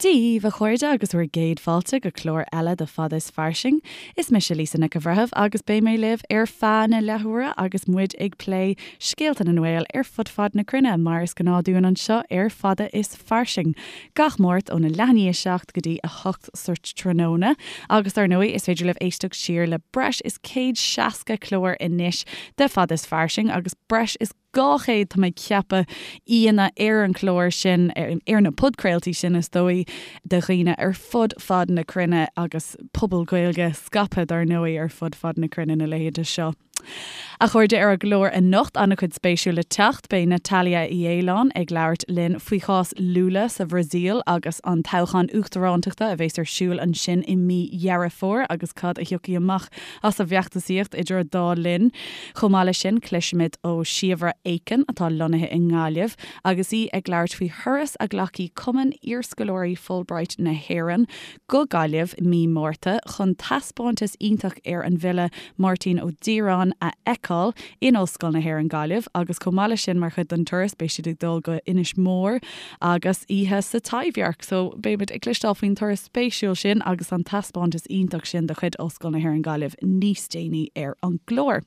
Dia dhaoibh, a chairde, agus bhur gcéad fáilte go clár eile de Fada is Fairsing. Is mise Lisa Nic an Bhreithimh agus beidh mé libh ar feadh na leathuaire agus muid ag plé scéalta na nGael ar fud fad na cruinne, mar is gnáth dúinn anseo ar Fada is Fairsing, gach Máirt óna leath i ndiaidh 7 go dtí 8 sa tráthnóna. Agus dar ndóigh, is féidir libh éisteacht siar le breis is 160 clár anois de Fada is Fairsing agus breis is 200, tá mé ag ceapadh, aíonna ar an chlár sin, ar na podchraoltaí sin is dóigh, de dhaoine ar fud fad na cruinne agus pobal Gaeilge scaipthe dar ndóigh ar fud fad na cruinne na laethanta seo. A chairde, ar an gclár anocht, an-chuid spéisiúil le teacht. Beidh Natalia Uí Fhaoláin ag labhairt linn faoi chás Lula sa Bhrasaíl agus an toghchán uachtarántachta a bheas ar siúl ansin i mí Dheireadh Fómhair agus cad a thiocfaidh amach as an bhfeachtasaíocht idir an dá linn. Chomh maith leis sin, cloisfimid ó Shíobhra Aiken, atá lonnaithe i nGaillimh, agus í ag labhairt faoi thuras a ghlacfaidh Cumann Iarscoláirí Fulbright na hÉireann go Gaillimh mí Márta chun taispeántas iontach ar an bhfile Máirtín Ó Direáin a fheiceáil in Ollscoil na hÉireann Gaillimh agus chomh maith leis sin mar chuid den turas beidh siad ag dul go Inis Mór agus oíche sa Taibhdhearc. So beimid ag cloisteáil faoin turas spéisiúil sin agus an taispeántas iontach sin de chuid Ollscoil na hÉireann Gaillimh níos déanaí ar an gclár.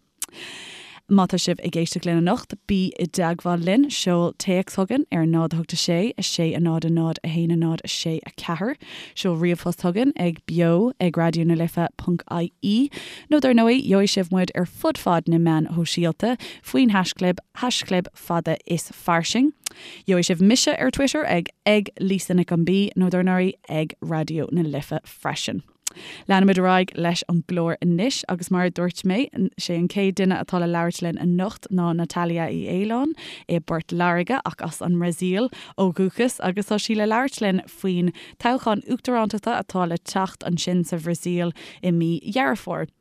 Má tá sibh ag éisteacht linn anocht, bí i dteagmháil linn, seol téacs chugainn ar 0 8 6 6 0 0 1 0 6 4, seol ríomhphost chugainn ag beo ag raidió na life ponc ie, nó dar ndóigh, gheobhaidh sibh muid ar fud fad na meáin shóisialta faoin haischlib, haischlib fada is fairsing. Gheobhaidh sibh mise ar Twitter ag ag Lisa Nic an B nó dar ndóigh ag Raidió na Life freisin. Leanfaimid ar aghaidh leis an gclár anois agus mar a dúirt mé, sé an chéad duine atá le labhairt linn anocht ná Natalia Uí Fhaoláin i bPort Láirge ach as an mBrasaíl ó dhúchas agus tá sí le labhairt linn faoin toghchán uachtarántachta atá le teacht ansin sa Bhrasaíl i mí Dheireadh Fómhair.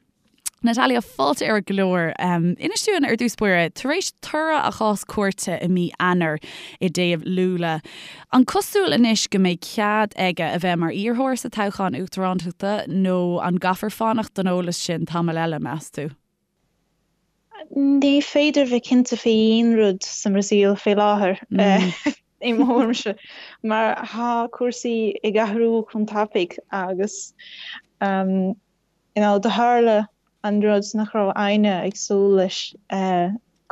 Natalia, fáilte ar an gclár. Inis dúinn ar dtús báire, tar éis toradh a chás cúirte i mí Eanáir i dtaobh Lula, an cosúil anois go mbeidh cead aige a bheith mar iarrthóir sa toghchán uachtarántachta nó an gcaithfear fanacht don eolas sin tamall eile, meas tú? Ní féidir bheith cinnte faoi aon rud sa mBrasaíl faoi láthair, i mo thuairimse, mar tá cúrsaí ag athrú chomh tapaidh agus You know, do tharla an rud nach raibh éinne ag súil leis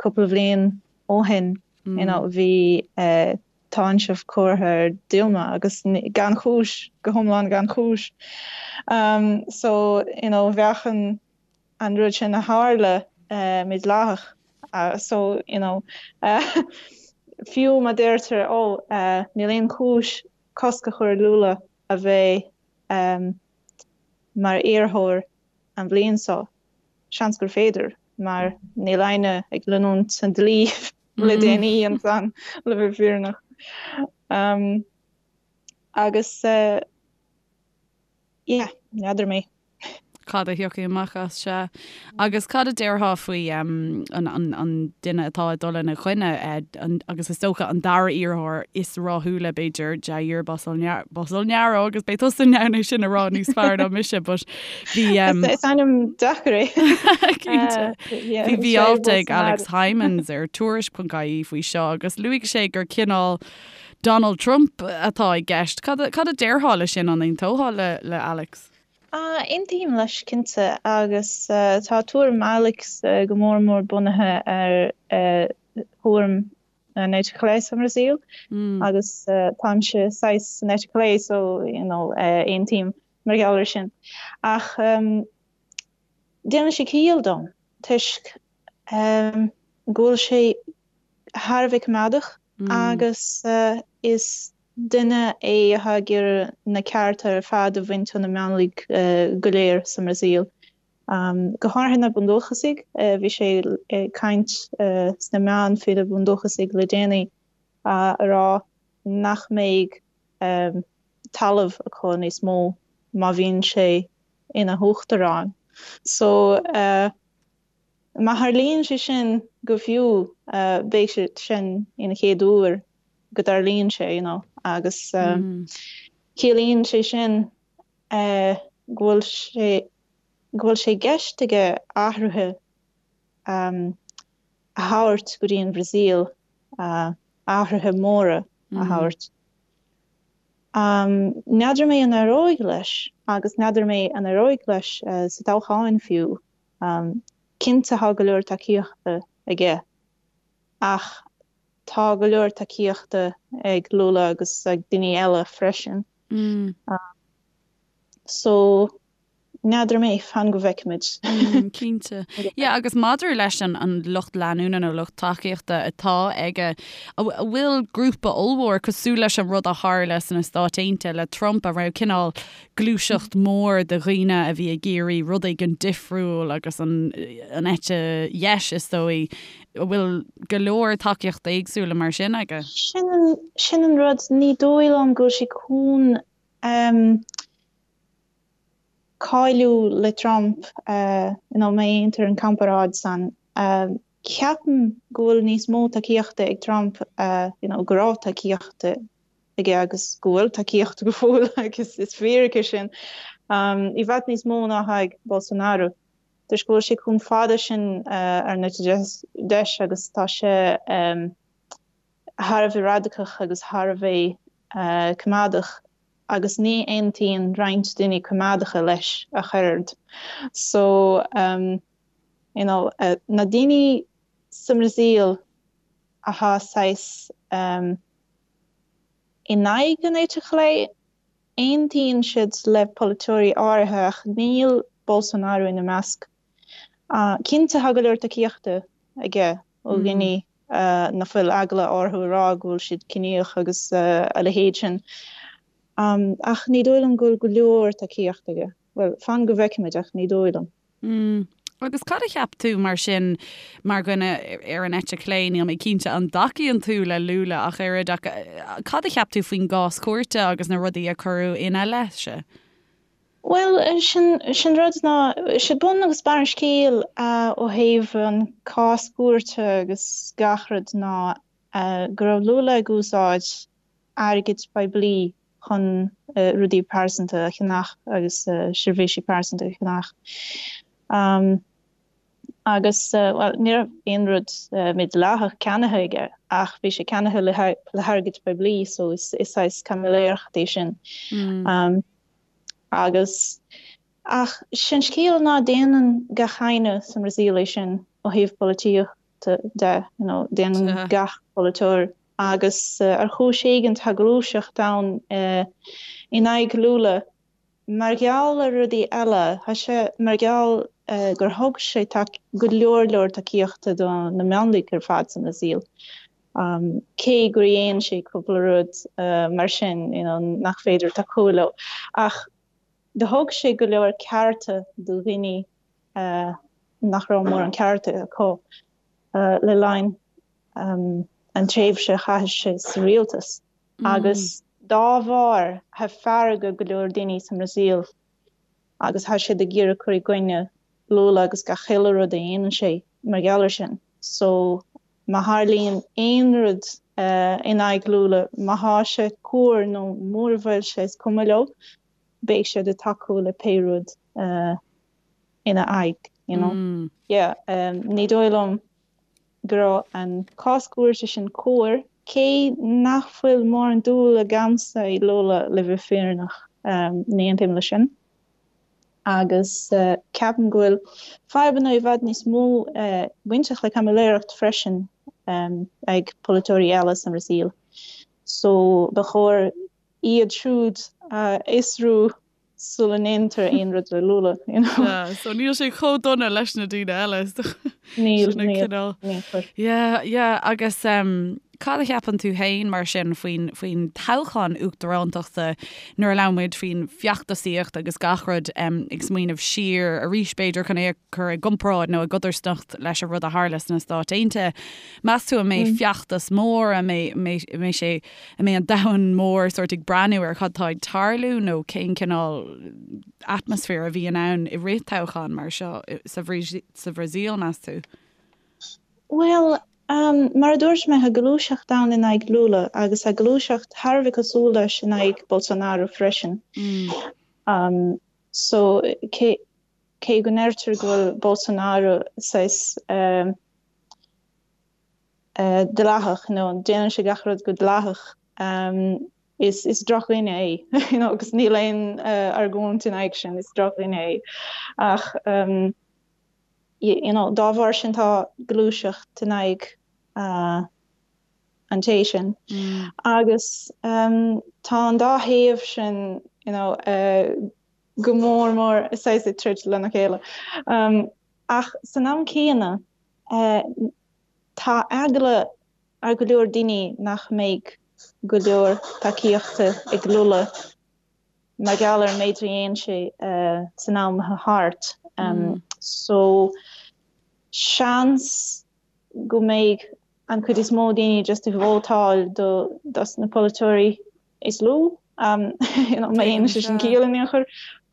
cúpla bhliain ó shin, you know, bhí táinseamh curtha ar Dilma agus gan chúis, go hiomlán gan chúis. So, you know, bheadh an an rud sin a tharla mídhleathach. So, you know, fiú má deirtear, oh, níl aon chúis cosc a chur ar Lula a bheith mar iarrthóir an bhliain seo, seans gur féidir, mar níl éinne ag leanúint an dlí le déanaí ansan, le bheith fírinneach. Agus yeah, n'fheadar mé. Cad a thiocfaidh amach as, sea. Agus cad a déarfá faoi an duine atá ag dul ina choinne, agus is dócha an dara iarrthóir is rathúla, b'fhéidir, Jair Bolsonaro, agus beidh tusa in ann é sin a rá níos fearr ná mise, but bhí. Is ainm deacair é. Cinnte. Bhí alt ag Alex Hijmans ar Tuairisc.ie faoi seo agus luaigh sé gur cineál Donald Trump atá i gceist. Cad a déarfá le sin, an aontófá le Alex? Aontaím leis cinnte, agus tá tuairim Alex go mór mór bunaithe ar thuairim an eite chlé sa mBrasaíl, agus táimse saghas san eite chlé so you know aontaím mar gheall ar sin. Ach déanann sé ciall dom toisc go bhfuil sé thar a bheith coimeádach agus is Duine é atá ag iarraidh na cearta ar fad a bhaint ó na mionlaigh go léir sa mBrasaíl, go háirithe na bundúchasaigh. Bhí sé ag caint sna meáin faoi na bundúchasaigh le déanaí, a rá nach mbeidh talamh acu níos mó má bhíonn sé ina huachtarán. So. Má tharlaíonn sé sin go fiú, beidh sé sin ina chéad uair go dtarlaíonn sé, you know, agus ciallaíonn sé sin go bhfuil sé, go bhfuil sé i gceist aige athruithe a thabhairt go dtí an Bhrasaíl, athruithe móra a thabhairt. N'fheadar mé an éireoidh leis agus n'fheadar mé an éireoidh leis sa toghchán fiú. Cinnte tá go leor tacaíochta aige ach tá go leor tacaíochta ag Lula agus ag daoine eile freisin. So N'fheadar mé, fan go bhfeicfimid. Cinnte. Yeah, agus maidir leis an an lucht leanúna nó lucht tacaíochta atá aige, an bhfuil grúpa ollmhór cosúil leis an rud a tharla sna Stáit Aontaithe le Trump, an raibh cineál gluaiseacht mór de dhaoine a bhí ag iarraidh rud éigin difriúil agus an an eite dheis is dóigh, an bhfuil go leor tacaíochta éagsúla mar sin aige? Sin an, sin an rud, ní dóigh liom go bhfuil sé chun cáiliú le Trump, you know, má dhéantar an comparáid san. Ceapaim go bhfuil níos mó tacaíochta ag Trump, you know, go raibh tacaíochta aige agus go bhfuil tacaíochta go fóill agus is fíric é sin, i bhfad níos mó ná atá ag Bolsonaro. Toisc go bhfuil sé chomh fada sin ar an eite deis agus tá sé thar a bheith radacach agus thar a bheith coimeádach agus ní aontaíonn roinnt daoine coimeádacha leis ach oiread. So, you know, na daoine sa mBrasaíl atá saghas in aghaidh an eite chlé, aontaíonn siad le polaiteoirí áirithe ach níl Bolsonaro ina measc. Cinnte tá go leor tacaíochta aige ó dhaoine nach bhfuil eagla orthu a rá go bhfuil siad ciníoch agus a leithéid sin. Ach ní dóigh liom go bhfuil go leor tacaíochta aige. Bhuel, fan go bhfeicfimid ach ní dóigh liom. Agus cad a cheap tú mar sin, mar dhuine ar an eite chlé, níl mé cinnte an dtacaíonn tú le Lula ach oiread, ach cad a cheap tú faoin gcás cúirte agus na rudaí a cuireadh ina leith-se? Bhuel, sin sin rud ná, sé bun agus barr an scéil ó thaobh an cás cúirte agus gach rud ná go raibh Lula ag úsáid airgid poiblí chun rudaí pearsanta a cheannach agus seirbhísí pearsanta a cheannach. Agus, bhuel, ní raibh aon rud mídhleathach ceannaithe aige ach bhí sé ceannaithe le hairgead poiblí so is saghas caimiléireacht é sin. Agus, ach sé'n scéal ná déanann gach éinne sa mBrasaíl é sin ó thaobh polaitíochta de, you know, déanann gach polaiteoir agus ar chúis éigin tá gluaiseacht ann in aghaidh Lula mar gheall ar rudaí eile, tá sé mar gheall gur thug sé go leor leor tacaíochta do na mionlaigh ar fad sa mBrasaíl. Cé gur dhéan sé cúpla rud mar sin you know nach féidir tacú leo, ach do thug sé go leor cearta do dhaoine nach raibh mórán cearta acu le linn an tréimhse a chaith sé sa rialtas. Agus dá bharr tá fearg ar go leor daoine sa mBrasaíl agus tá siad ag iarraidh cur i gcoinne Lula agus gach uile rud a dhéanann sé mar gheall air sin. So Má tharlaíonn aon rud in aghaidh Lula, má thá sé cóir nó mura bhfuil sé, is cuma leo, beidh siad ag tacú le pé rud ina aghaidh, you know. Yeah, ní dóigh liom go raibh an cás cúirte sin cóir, cé nach bhfuil mórán dúil agamsa i Lula le bheith fírinneach, ní aontaím leis sin. agus ceapaim go bhfuil fadhbanna i bhfad níos mó bainteach le caimiléireacht freisin ag polaiteoirí eile sa mBrasaíl. So ba chóir iad siúd a fhiosrú sula ndéantar aon rud le Lula, you know. Yeah, so níl sé chomh dona leis na daoine eile. Níl, níl, níl. Yeah, yeah, agus um, Cad a cheapann tú féin, mar sin, faoin, faoin toghchán uachtarántachta nuair a labhrann muid faoin bhfeachtasaíocht agus gach rud, ag smaoineamh siar arís, b'fhéidir, chun é a chur i gcomparáid nó i gcodarsnacht leis an rud a tharla sna Stáit Aontaithe. Meas tú an mbeidh feachtas mór, an mbeidh, an mbeidh sé, an mbeidh an domhan mór sórt ag breathnú ar cad tá ag tarlú nó cén cineál atmaisféar a bhíonn ann i rith toghchán mar seo sa Bhrasaíl, meas tú? Bhuel, mar a dúirt mé, tá gluaiseacht ann in aghaidh Lula agus tá gluaiseacht thar a bheith cosúil leis in aghaidh Bolsonaro freisin. So, cé cé go ndeirtear go bhfuil Bolsonaro saghas dleathach, nó déanann sé gach rud go dleathach, Is is drochdhuine é, you know, agus níl aon argóint in aghaidh sin, is drochdhuine é. Ach um, you know, dá bharr sin tá gluaiseacht in aghaidh uh, an té sin. Mm. Agus um, tá an dá thaobh sin you know, uh, go mór mór saghas ag troid lena chéile. Um, ach san am céanna uh, tá eagla ar go leor daoine nach mbeidh go leor tacaíochta ag Lula mar gheall ar an méid a dhéan sé san am atá thart. So seans go mbeidh an chuid is mó daoine just ag vótáil do dos na polaiteoirí is lú, you know, má dhéanann sé sin ciall in aon chor,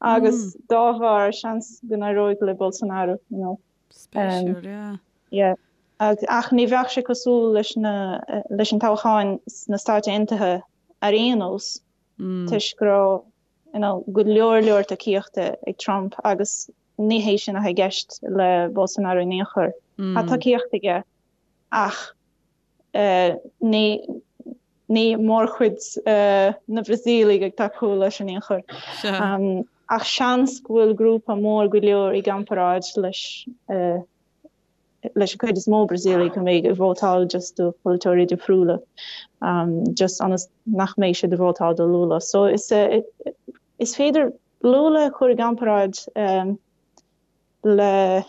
agus dá bharr seans go n-éireoidh le Bolsonaro, you know. Spéisiúil, yeah. Yeah. Ach ní bheadh sé cosúil leis na, leis an toghcháin sna Stáit Aontaithe ar aon nós, toisc go raibh, you know, go leor leor tacaíochta ag Trump agus ní hé sin atá i gceist le Bolsonaro in aon chor. Tá tacaíocht aige ach ní, ní mórchuid na Brasaíligh ag tacú leis in aon chor. Ach seans go bhfuil grúpa mór go leor i gcomparáid leis leis an chuid is mó Brasaíligh a mbeidh ag vótáil just do pholaiteoirí difriúla, just ionas nach mbeidh siad ag vótáil do Lula. So is is féidir Lula a chur i gcomparáid le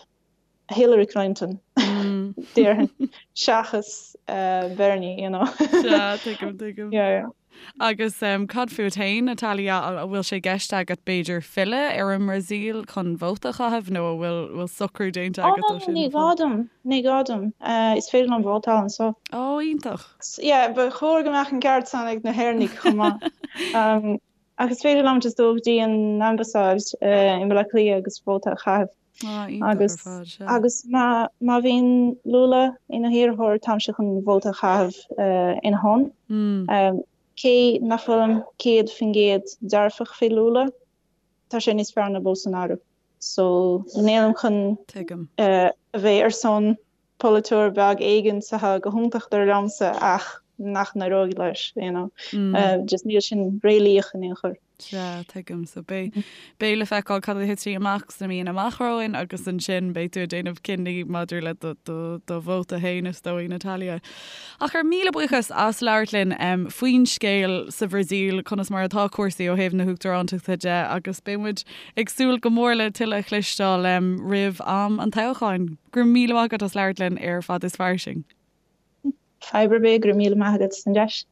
Hillary Clinton, déarfainn, seachas Bernie, you know. Sea, tuigim, tuigim. Yeah, yeah. Agus cad fút féin, Natalia, an bhfuil sé i gceist agat b'fhéidir filleadh ar an mBrasaíl chun vóta a chaitheamh nó an bhfuil bhfuil socrú déanta agat dó sin? Ní gá dom, ní gá dom. Is féidir liom vótáil anseo. Ó, iontach. Yeah, ba chóir go mbeadh an ceart san ag na hÉireannaigh chomh maith. Ach is féidir liom just dul go dtí an ambasáid i mBaile Átha Cliath agus vóta a chaitheamh. Ah, iontach ar fad, sea. Agus má má bhíonn Lula ina hiarrthóir, táimse chun vóta a chaitheamh ina shon. Cé nach bhfuilim 100% dearfach fé Lula, tá sé níos fearr ná Bolsonaro. So nílim chun a bheith ar son polaiteoir beag éigin atá go hiontach dar liomsa ach nach n-éireoidh leis, you know. Just níl sin réalaíoch in aon chor. Sea, tuigim. So beidh, beidh le feiceáil cad a thitfidh amach sna míonna amach romhainn agus ansin beidh tú ag déanamh cinní maidir le do, do, do vóta féin is dóigh, Natalia. Ach ar míle buíochas as labhairt linn faoin scéal sa Bhrasaíl, conas mar atá cúrsaí ó thaobh na huachtarántachta de agus beidh muid ag súil go mór le tuilleadh a chloisteáil roimh am an toghcháin. Go raibh míle maith agat as labhairt linn ar Fad is Fairsing. Fadhb ar bith, go raibh míle maith agat as an deis.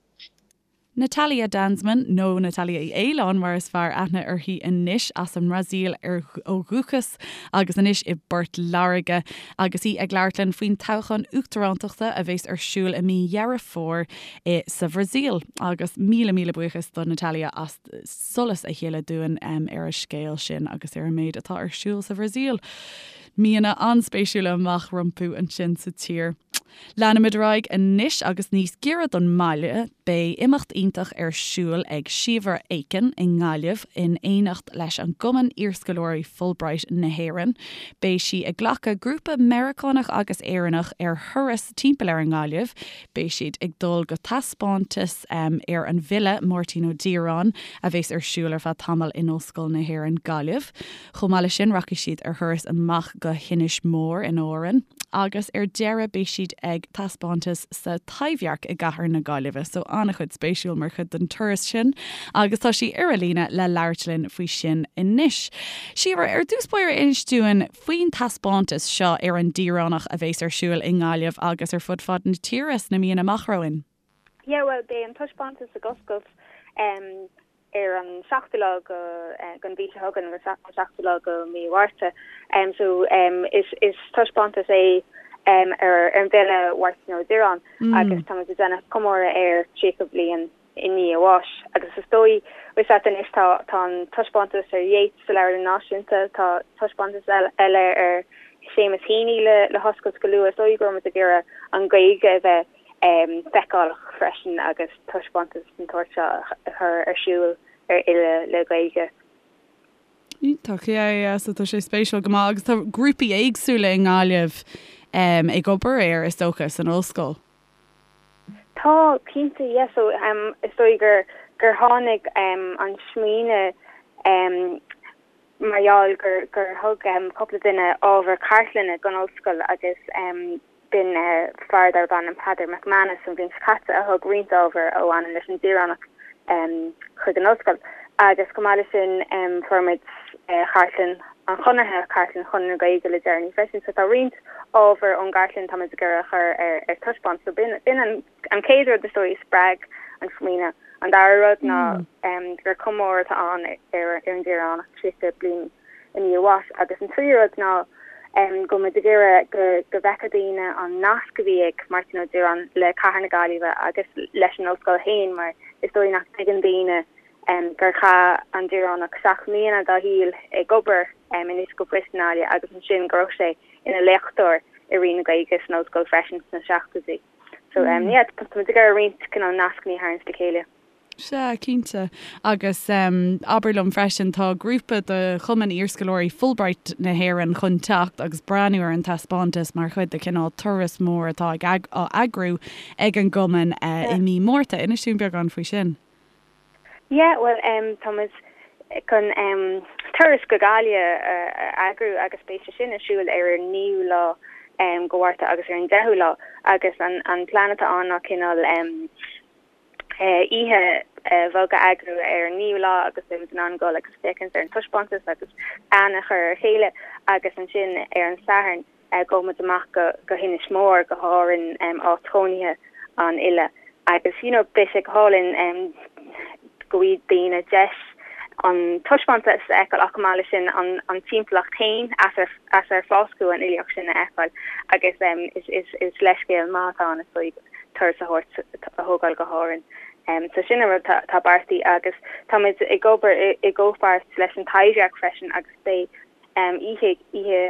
Natalia Danzmann, nó Natalia Uí Fhaoláin mar is fearr aithne uirthi anois, as an mBrasaíl ó dhúchas agus anois i bPort Láirge, agus í ag labhairt linn faoin toghchán uachtarántachta a bheas ar siúl i mí Dheireadh Fómhair i sa Bhrasaíl. Agus míle míle buíochas do Natalia as solas a shileadh dúinn ar an scéal sin agus ar an méid atá ar siúl sa Bhrasaíl. Míonna an-spéisiúla amach rompu ansin sa tír. Leanfaimid ar aghaidh anois agus níos giorra don mbaile, beidh imeacht iontach ar siúl ag Síobhra Aiken i nGaillimh in éineacht leis an gCumann Iarscoláirí Fulbright na hÉireann. Beidh sí ag glacadh grúpa Meiriceánach agus Éireannach ar thuras timpeall ar an nGaillimh. Beidh siad ag dul go taispeántas ar an bhfile Máirtín Ó Direáin a bheas ar siúl ar feadh tamaill in Ollscoil na hÉireann, Gaillimh. Chomh maith leis sin rachaidh siad ar thuras amach go hInis Mór in Árainn agus ar deireadh beidh siad ag taispeántas sa Taibhdhearc i gcathair na Gaillimhe. So an-chuid spéisiúil mar chuid den turas sin agus tá sí ar an líne le labhairt linn faoi sin anois. Síobhra, ar dtús báire inis dúinn faoin taispeántas seo ar an Díreánach a bheas ar siúl i nGaillimh agus ar fud fad na tíre sna míonna amach romhainn. Yeah, bhuel, beidh an taispeántas ag oscailt ar an seachtú lá den mhí seo chugainn, an seachtú lá de mhí Mhárta. So is taispeántas é ar an bhfile Máirtín Ó Direáin agus táimid ag déanamh comóradh air 30 bliain i ndiaidh a bháis. Agus is dóigh, bhfuil a fhios agat anois, tá tá an taispeántas ar Yeats sa Leabharlann Náisiúnta, tá taispeántas eile ar Seamus Heaney le le hoscailt go luath. Is dóigh go raibh muid ag iarraidh an Ghaeilge a bheith feiceálach freisin agus taispeántas den tsórt seo a chur ar siúl ar fhile le Gaeilge. Iontach, yeah, yeah, so tá sé spéisiúil go maith agus tá grúpaí éagsúla i nGaillimh ag obair air, is dócha, san ollscoil. Tá, cinnte, yeah, so is dóigh gur. gur tháinig an smaoineamh mar gheall gur gur thug cúpla duine ábhar cartlainne don ollscoil agus b'in fear darb ainm Peadar McManus an bhliain seo caite a thug roinnt ábhar a bhaineann leis an Direánach chuig an ollscoil. Agus chomh maith leis sin fuair muid cartlann an Chonartha, cartlann Chonradh na Gaeilge le deireanaí freisin. So tá roinnt ábhar ón gcartlann tá muid ag iarraidh a chur ar taispeáint. So b'in an chéad rud is dóigh a spreag an smaoineamh. An dara rud ná gur comóradh atá ann ar an Direánach 30 bliain i ndiaidh a bháis. Agus an tríú rud ná go bhfuil muid ag iarraidh go go bhfeicfeadh daoine an nasc a bhí ag Máirtín Ó Direáin le cathair na Gaillimhe agus leis an ollscoil féin mar is dóigh nach dtuigeann daoine gur chaith an Direánach 7 mbliana dá shaol ag obair in Oifig an Phoist i nGaillimh agus ansin go raibh sé ina léachtóir i Roinn na Gaeilge san ollscoil freisin sna seachtóidí. So yeah, tá muid ag iarraidh roinnt cineál nascanna a tharraingt le chéile. Sea, cinnte. Agus abair liom freisin, tá grúpa de Chumann Iarscoláirí Fulbright na hÉireann chun teacht agus breathnú ar an taispeántas mar chuid de chineál turas mór atá á eagrú ag an gcumann i mí Márta. Inis dúinn beagán faoi sin. Yeah, bhuel em tá muid chun em turas go Gaillimh a eagrú agus beidh sé sin ar siúl ar an naoú lá em go Mhárta agus ar an deichiú lá agus an an plean atá ann ná cineál em eh oíche bheag a eagrú ar an naoú lá agus beidh muid in ann dul agus féachaint ar an taispeántas agus aithne a chur ar a chéile agus ansin ar an Satharn Gabhfaidh muid amach go hInis Mór, go hÁrainn, áit chónaithe an fhile agus you know beidh sé go hálainn go bhfaighidh daoine deis an taispeántas a fheiceáil ach chomh maith leis sin an timpeallacht féin as ar as ar fáscadh an fhilíocht sin a fheiceáil agus is is leithscéal maith atá ann is dóigh turas a thabhairt a thógáil go hÁrainn. So sin an rud atá beartaithe agus táimid ag obair i gcomhpháirt leis an Taibhdhearc freisin agus beidh Oíche oíche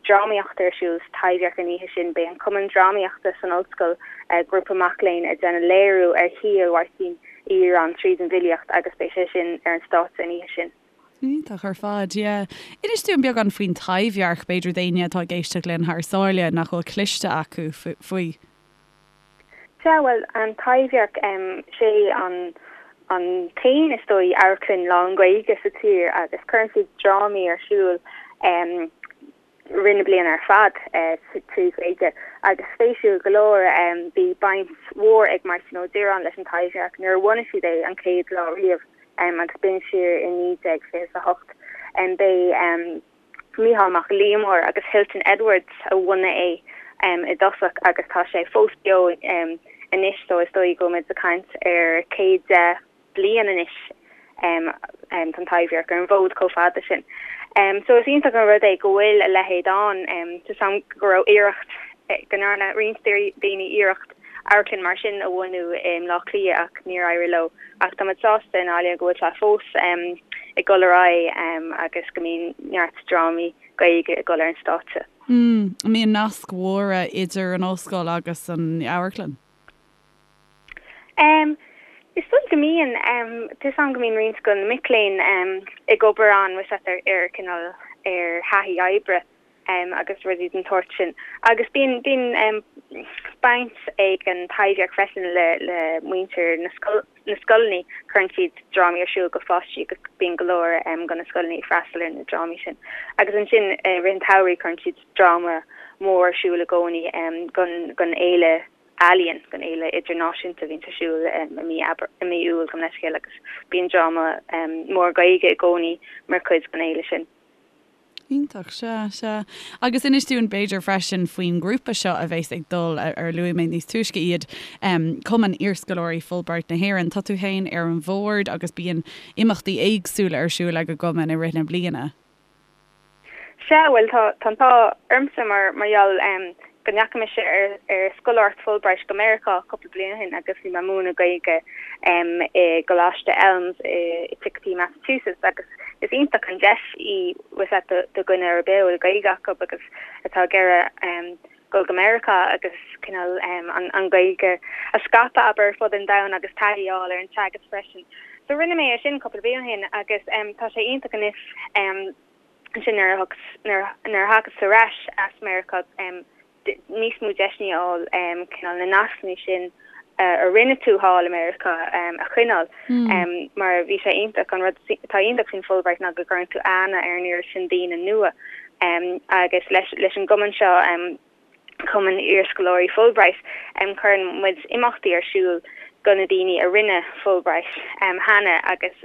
drámaíochta ar siúl sa Taibhdhearc an oíche sin. Beidh an Cumann Drámaíochta san ollscoil, grúpa mac léinn, ag déanamh léiriú ar shaol Mháirtín Uí Dhireáin tríd an bhfilíocht agus beidh sé sin ar an stáitse an oíche sin. Iontach ar fad, yeah. Inis dúinn beagán faoin Taibhdhearc, b'fhéidir d'éinne atá ag éisteacht linn thar sáile nach bhfuil cloiste acu faoi. Sea, bhuel, an Taibhdhearc, sé an an t-aon, is dóigh, amharclann lán-Ghaeilge sa tír agus cuireann siad drámaí ar siúl rith na bliana ar fad trí Ghaeilge. Agus spéisiúil go leor, bhí baint mhór ag Máirtín Ó Direáin leis an Taibhdhearc nuair a bhunaigh siad é an chéad lá riamh agus b'in siar i 1928. B'é. Mícheál Mac Liammóir agus Hilton Edwards a bhunaigh é i dtosach agus tá sé fós beo anois so is dóigh go bhfuil muid ag caint ar 110 bliain anois tá an Taibhdhearc ar an bhfód chomh fada sin. So is iontach an rud é go bhfuil a leithéid ann. Tá 'fhios a'm go raibh iarracht, go ndearna roinnt daoine iarracht amharclann mar sin a bhunú i mBleá Cliath ach níor éirigh leo. Ach tá muid sásta i nGaillimh go bhfuil sé fós ag dul ar aghaidh agus go mbíonn neart drámaí Gaeilge ag dul ar an stáitse. An mbíonn naisc mhóra idir an ollscoil agus an amharclann? Is dóigh go mbíonn. Tá 'fhios a'm go mbíonn roinnt de na mic léinn ag obair ann, ar cineál ar thaithí oibre. agus rudaí den tsórt sin. Agus bíonn, bíonn baint ag an Taibhdhearc freisin le, le muintir na scoil, na scoileanna, cuireann siad drámaí ar siúl go pháistí agus bíonn go leor de na scoileanna ag freastal ar na drámaí sin. Agus ansin i rith an tsamhraidh cuireann siad dráma mór ar siúl i gcónaí don, don fhéile ealaíon, don fhéile idirnáisiúnta a bhíonns ar siúl i mí Aibreán, i mí Iúil gabh mo leithscéal agus bíonn dráma mór Gaeilge i gcónaí mar chuid den fhéile sin. Iontach, sea, sea. Agus inis dúinn b'fhéidir freisin faoin ngrúpa seo a bheas ag dul, ar luaigh mé níos túisce iad, Cumann Iarscoláirí Fulbright na hÉireann. Tá tú féin ar an bhord agus bíonn imeachtaí éagsúla ar siúl ag an gcumann i rith na bliana. Sea, bhuel tá an t-ádh ormsa mar mar gheall go ndeachaigh mise ar ar scoláireacht Fulbright go Meiriceá cúpla bliain ó shin agus bhí mé ag múineadh Gaeilge i gColáiste Elms i Chicopee, Massachusetts agus is iontach an deis í bhfuil 'fhios a'd do dhuine ar bith a bhfuil Gaeilge acu agus atá ag iarraidh dul go Meiriceá agus cineál an Ghaeilge a scaipeadh abair ar fud an domhain agus taithí a fháil ar an teagasc freisin. So rinne mé é sin cúpla bliain ó shin agus tá sé iontach anois ansin nuair a nuair a thagas ar ais as Meiriceá níos mó deiseanna a fháil cineál na nascanna sin. A rinne tú thall i Meiriceá a choinneáil mar bhí sé iontach. An rud atá iontach faoin Fulbright ná go gcuireann tú aithne ar an oiread sin daoine nua agus leis an gcumann seo, Cumann Iarscoláirí Fulbright, cuireann muid imeachtaí ar siúl do na daoine a rinne Fulbright cheana agus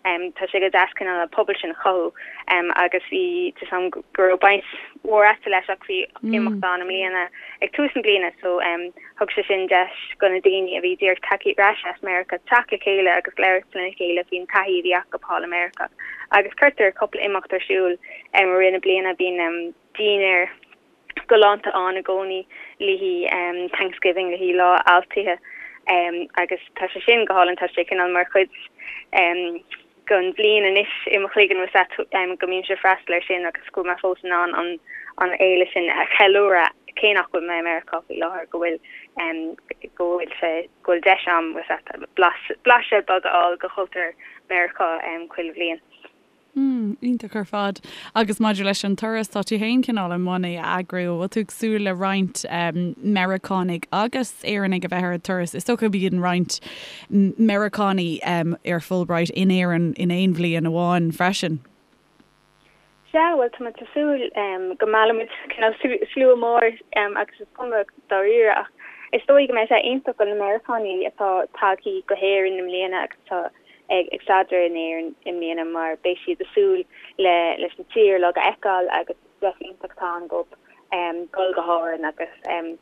Tá sé go deas cineál an pobal sin a chothú agus bhí tá 'fhios a'm go raibh baint mhór a'tsa leis ach bhí imeacht ann i mbliana ag tús na bliana so thug sé sin deis go na daoine a bhí díreach tagtha ar ais as Meiriceá teacht le chéile agus labhairt lena chéile faoin taithí a bhí acu thall i Meiriceá agus cuirtear cúpla imeacht ar siúl i rith na bliana bíonn dinnéar galánta ann i gcónaí le haghaidh Thanksgiving, le haghaidh Lá Altaithe agus tá sé sin go hálainn, tá sé cineál mar chuid den bhliain anois i mo chloigeann bhfuil 's a'd go mbímse ag freastal air sin agus go bhfuil mé fós in ann an an fhéile sin a cheiliúradh cé nach bhfuil mé i Meiriceá faoi láthair go bhfuil go bhfuil sé go bhfuil deis a'm bhfuil 's a'd blaiseadh beag a fháil de chultúr Meiriceá chuile bhliain. Mm, iontach ar fad. Agus maidir leis an turas, tá tú féin cineál i mbun é a eagrú. Bhfuil tú ag súil le roinnt Meiriceánaigh agus Éireannaigh a bheith ar an turas? Is dócha go mbíonn roinnt Meiriceánaigh ar Fulbright in Éirinn in aon bhliain amháin freisin. Sea, bhuel, tá muid ag súil go meallfaimid cineál slua mór agus is cuma dáiríre ach is dóigh go mbeidh sé iontach do na Meiriceánaigh atá tagtha go hÉirinn i mbliana agus atá ag staidéar in Éirinn i mbliana mar beidh siad ag súil le leis an tír uilig a fheiceáil agus deis iontach atá ann dóibh dul go hÁrainn agus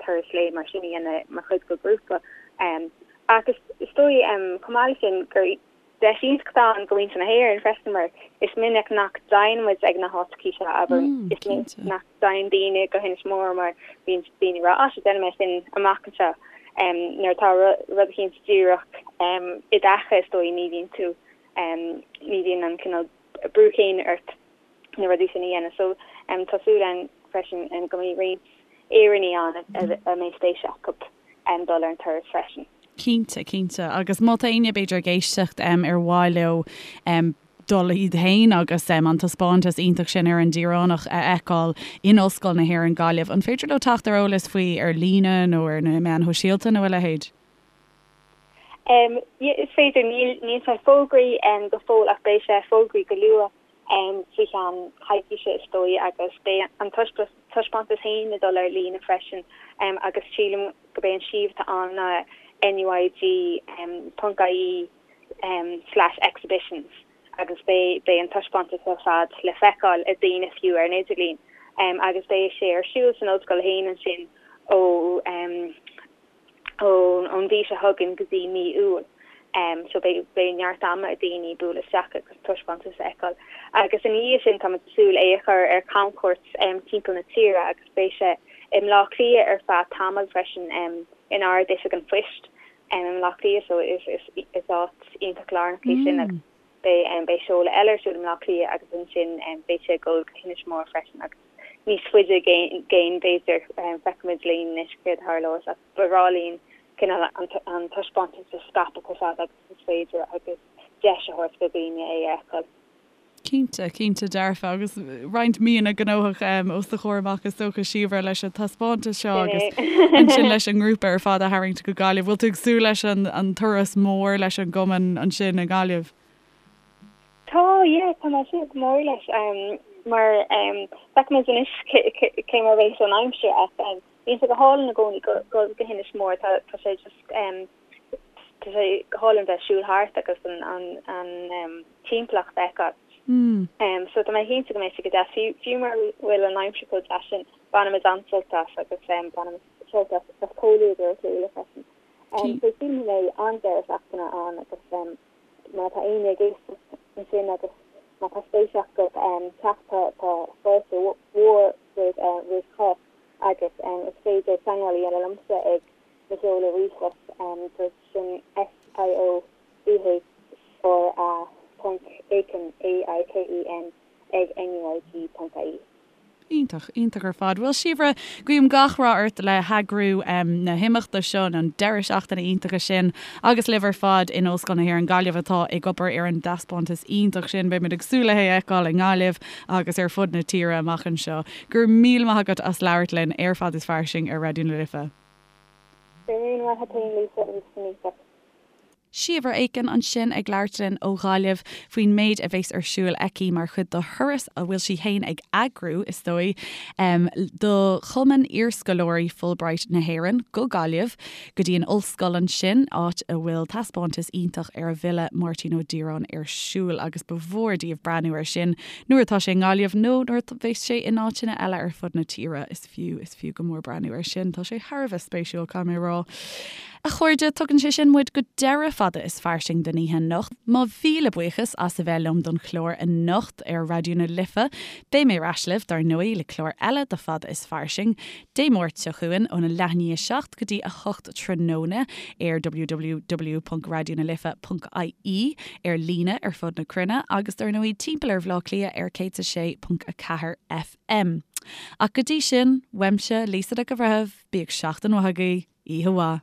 turas lae mar sin a dhéanamh mar chuid de ghrúpa. Ach is dóigh chomh maith leis sin gur deis iontach atá ann do mhuintir na hÉireann freisin mar is minic nach dtéann muid ag na háiteachaí seo, abair, is minic nach dtéann daoine go hInis Mór mar bíonn daoine ag rá 'á sea déanfaidh mé sin amach anseo'. Nuair atá rud eicínt díreach i d'aice is dóigh ní bhíonn tú, ní bhíonn an cineál brú céanna ort na rudaí sin a dhéanamh. So tá súil againn freisin go mbeidh roinnt Éireannaigh ann a mbeidh spéis acu dul ar an turas freisin. Cinnte, cinnte. Agus má tá éinne b'fhéidir ag éisteacht ar mhaith leo dul iad féin agus an taispeántas iontach sin ar an Direánach a fheiceáil in Ollscoil na hÉireann Gaillimh. An féidir leo teacht ar eolas faoi ar líne nó ar na meáin shóisialta nó a leithéid? Is féidir. Níl sé fógraithe go fóill ach beidh sé fógraithe go luath faoi cheann coicíse is dóigh agus beidh an taispeántas féin ag dul ar líne freisin agus sílim gurb é an suíomh atá ann ná NUIG ponc ie slash exhibitions agus beidh beidh an taispeántas ar fad le feiceáil ag daoine fiú ar an idirlíon agus beidh sé ar siúl san ollscoil féin ansin ó ón mhí seo chugainn go dtí mí Iúil so beidh beidh neart ama ag daoine bualadh isteach agus taispeántas a fheiceáil agus ina dhiaidh sin táimid ag súil é a chur ar camchuairt timpeall na tíre agus beidh sé i mBleá Cliath ar feadh tamaill freisin in Ard-Oifig an Phoist i mBleá Cliath so is is áit iontach lárnach í sin agus beidh beidh seoladh eile ar siúl i mBleá Cliath agus ansin beidh sé ag dul go hInis Mór freisin agus níos faide i gcéin b'fhéidir feicfimid linn anois céard a tharlós ach ba bhreá linn cineál an taispeántas a scaipeadh chomh fada agus is féidir agus deis a thabhairt do dhaoine é a fheiceáil. Cinnte, cinnte dearfa. Agus roinnt míonna gnóthach os do chomhair amach is dócha, Síobhra, leis an taispeántas seo agus ansin leis an ngrúpa ar fad a tharraingt go Gaillimh. Bhfuil tú ag súil leis an turas mór leis an gcumann ansin i nGaillimh? Tá, yeah, tá mé ag súil go mór leis mar feicfimid anois cé mar a bheas an aimsir ach bíonn sé go hálainn i gcónaí dul go hInis Mór, tá sé just Tá sé go hálainn bheith ag siúl thart agus an timpeallacht a fheiceáil. So tá mé cinnte go mbeidh sé go deas. Fiú mura bhfuil an aimsir chomh deas sin, bainfimid an-sult as agus bainfimid sult as comhluadar a chéile freisin. So sílim go mbeidh an-deireadh seachtaine ann agus má tá éinne ag éisteacht ansin agus má tá spéis acu teacht tá fáilte mhór roimh chách agus is féidir teagmháil a dhéanamh liomsa ag Mo sheoladh ríomhphost so sin S-I-O-B-H-R-A ponc Aiken, A-I-K-E-N, ag NUIG ponc IE. Iontach, iontach ar fad. Bhuel, Síobhra, guím gach rath ort le heagrú na himeachta seo, an deireadh seachtaine iontacha sin, agus libh ar fad in Ollscoil na hÉireann Gaillimh atá ag obair ar an dtaispeántas iontach sin. Beimid ag súil le hé a fheiceáil i nGaillimh agus ar fud na tíre amach anseo. Go raibh míle maith agat as labhairt linn ar Fad is Fairsing ar Raidió na Life. Go raibh míle maith agat féin Lisa arís san oíche. Síobhra Aiken ansin ag labhairt linn ó Ghaillimh faoin méid a bheas ar siúl aici mar chuid de thuras a bhfuil sí fhéin ag eagrú, is dóigh, do Chumann Iarscoláirí Fulbright na hÉireann go Gaillimh, go dtí an ollscoil ansin, áit a bhfuil taispeántas iontach ar an bhfile Máirtín Ó Direáin ar siúl agus ba mhór daoibh breathnú air sin nuair atá sé i nGaillimh nó nuair a bheas sé in áiteanna eile ar fud na tíre. Is fiú, is fiú go mór breathnú air sin. Tá sé thar a bheith spéisiúil, caithfidh mé a rá. A chairde, tugann sé sin muid go deireadh Fada is Fairsing don oíche anocht. Mo mhíle buíochas as a bheith liom don chlár anocht ar Raidió na Life. Beidh mé ar ais libh, dar ndóigh, le clár eile de Fada is Fairsing, Dé Máirt seo chugainn óna leath i ndiaidh 7 go dtí 8 tráthnóna ar www.raidionalife.ie, ar líne ar fud na cruinne agus dar ndóigh timpeall ar Bhaile Átha Cliath ar 106.4 FM. Ach go dtí sin, uaimse, Lisa Nic an Bhreithimh, bíodh seachtain mhaith agaibh, oíche mhaith.